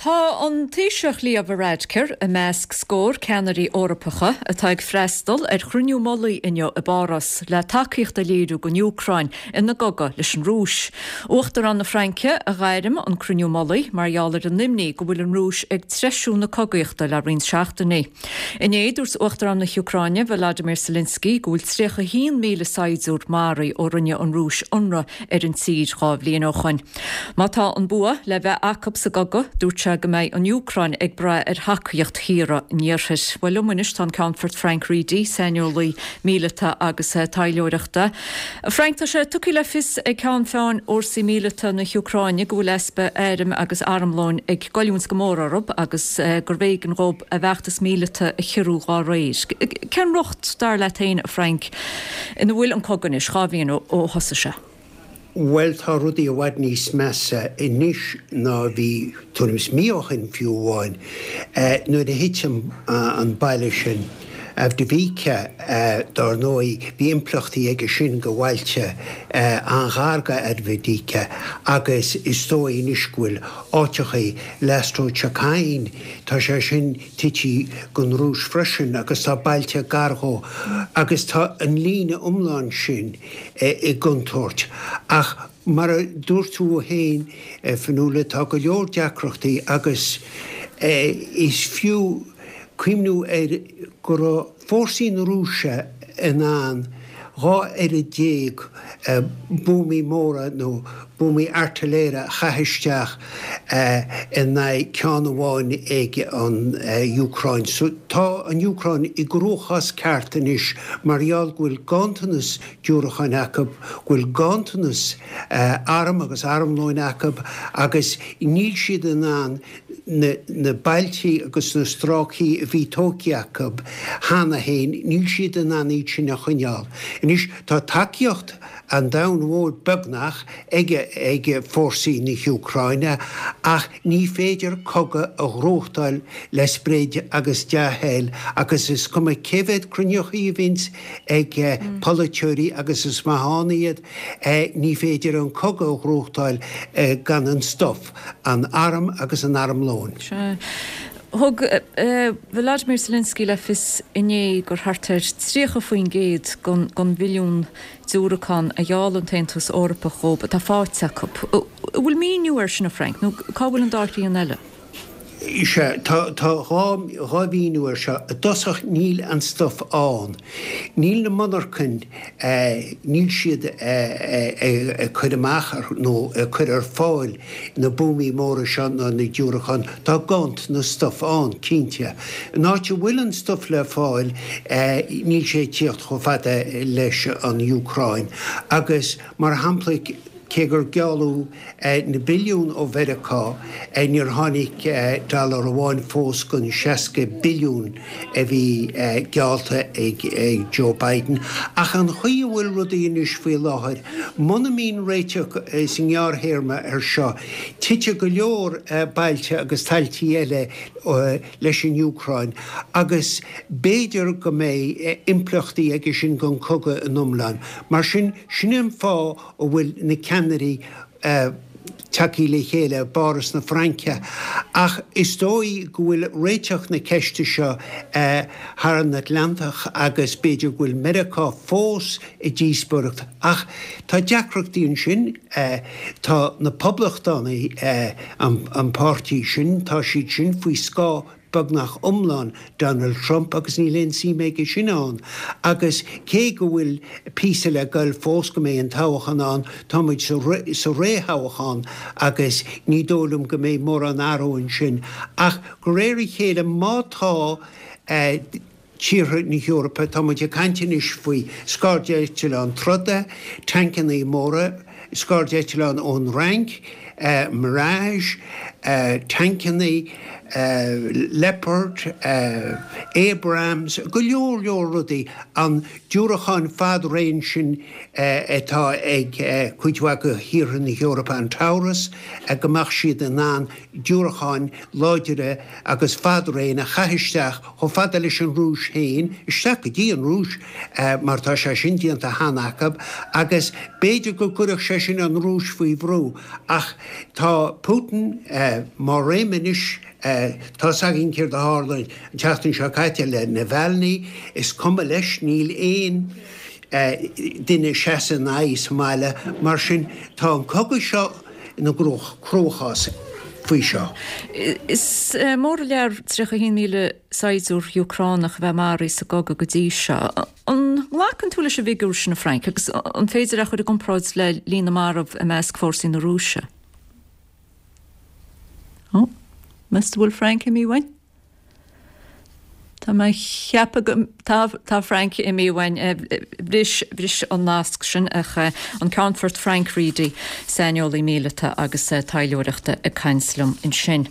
Tá an Taoiseach Leo Varadkar i measc scór ceannairí Eorpacha atá ag freastal ar chruinniú mullaigh inniu i bPáras le tacaíocht a léiriú don Úcráin ina gcogadh leis an Rúis. Uachtarán na Fraince a ghairm an cruinniú mullaigh mar gheall ar an imní go bhfuil an Rúis ag treisiú na cogaíochta le roinnt seachtainí. Inné, dúirt Uachtarán na hÚcráine, Volodymyr Zelensky, go bhfuil 31,000 saighdiúir maraithe ó rinne an Rúis ionradh ar an tír 2 bhliain ó shoin. Má tá an bua le bheith acu sa gcogadh, dúirt sé go mbeidh an Úcráin ag brath ar thacaíocht thíortha an Iarthair. Bhuel, liom anois tá an Ceannfort Frank Reidy, saineolaí míleata agus taidhleoireachta. Frank, tá sé tugtha le fios ag ceann feadhain fhórsaí míleata na hÚcráine go bhfuil easpa airm agus armlóin ag goilliúint go mór orthu agus gurbh éigean dhóibh a bhfeachtas míleata a chiorrú dhá réir. Cén riocht, dar leat féin, a Frank, ina bhfuil an cogadh anois, 2 bhliain ó thosaigh sé? Bhuel, tá rudaí i bhfad níos measa anois ná a bhí tuairim is mí ó shin fiú amháin. Nuair a thit an baile sin, Avdiivka, dár ndóigh, bhí impleachtaí aige sin go bhailte an-ghar go Avdiivka agus is dóigh anois go bhfuil áiteachaí, Lastochkyne, tá sé sin tite gon Rúis freisin agus tá bailte gar dhó agus tá an líne iomlán sin i gcontúirt. Ach mar a dúirt tú féin, a Fionnuala, tá go leor deacrachtaí agus is fiú cuimhniú ar go raibh fórsaí na Rúise in ann 12 oiread buamaí móra nó buamaí airtiléire a chaith isteach in aghaidh ceann amháin ag an Úcráin. So tá an Úcráin i gcruachás ceart anois mar gheall go bhfuil ganntanas diúracáin acu, go bhfuil ganntanas arm agus armlóin acu agus níl siad in ann na bailtí agus na stráicí a bhí tógtha acu cheana féin, níl siad in ann iad sin a choinneáil. Anois tá tacaíocht an domhain mhóir beagnach ag ag fórsaí na hÚcráine ach ní féidir cogadh a ghnóthachtáil le sprid agus dea-thoil agus is cuma cé mhéad cruinneochaí a bhíonns ag polaiteoirí agus is maith ann iad, ní féidir an cogadh a ghnóthachtáil gan an stuif. an arm agus an armlóin. Sea. Thug Volodymyr Zelensky le fios inné gur thart ar 30% den bhilliún diúracán a gheall an tAontas Eorpach dhóibh atá faighte acu. An bhfuil míniú air sin, a Frank, nó cá bhfuil an dá thrian eile? Sea, tá 2 mhíniú air seo. I dtosach, níl an stuif ann. Níl na monarchain, níl siad ag cur amach nó ag cur ar fáil na buamaí móra seo ná na diúracáin. Tá ganntanas stuif ann, cinnte. An áit a bhfuil an stuif le fáil, níl sé ag tíocht chomh fada leis an Úcráin. Agus, mar shampla, Cé gur gealladh na billiúin ó Mheiriceá, níor tháinig dollar amháin fós den 60 billiún a bhí geallta ag Joe Biden. Ach an chaoi a bhfuil rudaí anois faoi láthair, muna mbíonn réiteach sa ngearrthéarma air seo, titfidh go leor bailte agus tailtí eile leis an Úcráin agus b'fhéidir go mbeidh impleachtaí aige sin don chogadh in iomlán. Mar sin, sin é an fáth a bhfuil na ceannairí tagtha le chéile i bPáras na Fraince. Ach is dóigh go bhfuil réiteach na ceiste seo thar an Atlantach agus b'fhéidir go bhfuil Meiriceá fós i díospóireacht. Ach tá deacrachtaí ansin. Tá na Poblachtánaigh, an páirtí sin, tá siad sin faoi scáth beagnach iomlán Donald Trump agus níl aon suim aige sin ann. Agus cé go bhfuil píosa le goil fós go mbeidh an toghchán ann, tá muid sa réthoghchán agus ní dóigh liom go mbeidh mórán athrú ansin. Ach de réir a chéile má tá tíortha na hEorpa, tá muid ag caint anois faoi scairdeitleáin troda, tancannaí móra, scairdeitleáin ón Fhrainc, Mirage, tancannaí, Leopard, Abrams, go leor leor rudaí, an diúracáin fad-raon sin atá ag cuid mhaith de thíortha na hEorpa, an Taurus, go mbeadh siad in ann diúracáin láidre agus fad-raon a chaith isteach chomh fada leis an Rúis féin, isteach go dtí an Rúis, mar tá sé sin déanta cheana acu, agus b'fhéidir go gcuirfeadh sé sin an Rúis faoi bhrú. Ach. Tá Putin má réim anois, tá's againn céard a tharla an tseachtain seo caite le Navalny, is cuma leis, níl aon duine ag seasamh ina aghaidh sa mbaile, mar sin tá an cogadh seo ina gcruachás faoi seo. Is mór an lear 31,000 saighdiúir Úcránach a bheith maraithe sa gcogadh go dtí seo. An nglacann tú leis an bhfigiúr sin, a Frank, agus an féidir é a chur i gcomparáid le líon na marbh i measc fórsaí na Rúise? Ó, meas tú an bhfuil Frank imithe uainn? Tá mé ag ceapadh go, tá, tá Frank imithe uainn. Bhris, bhris an nasc sin ach an Ceannfort Frank Reidy, saineolaí míleata agus taidhleoireachta ag caint liom ansin.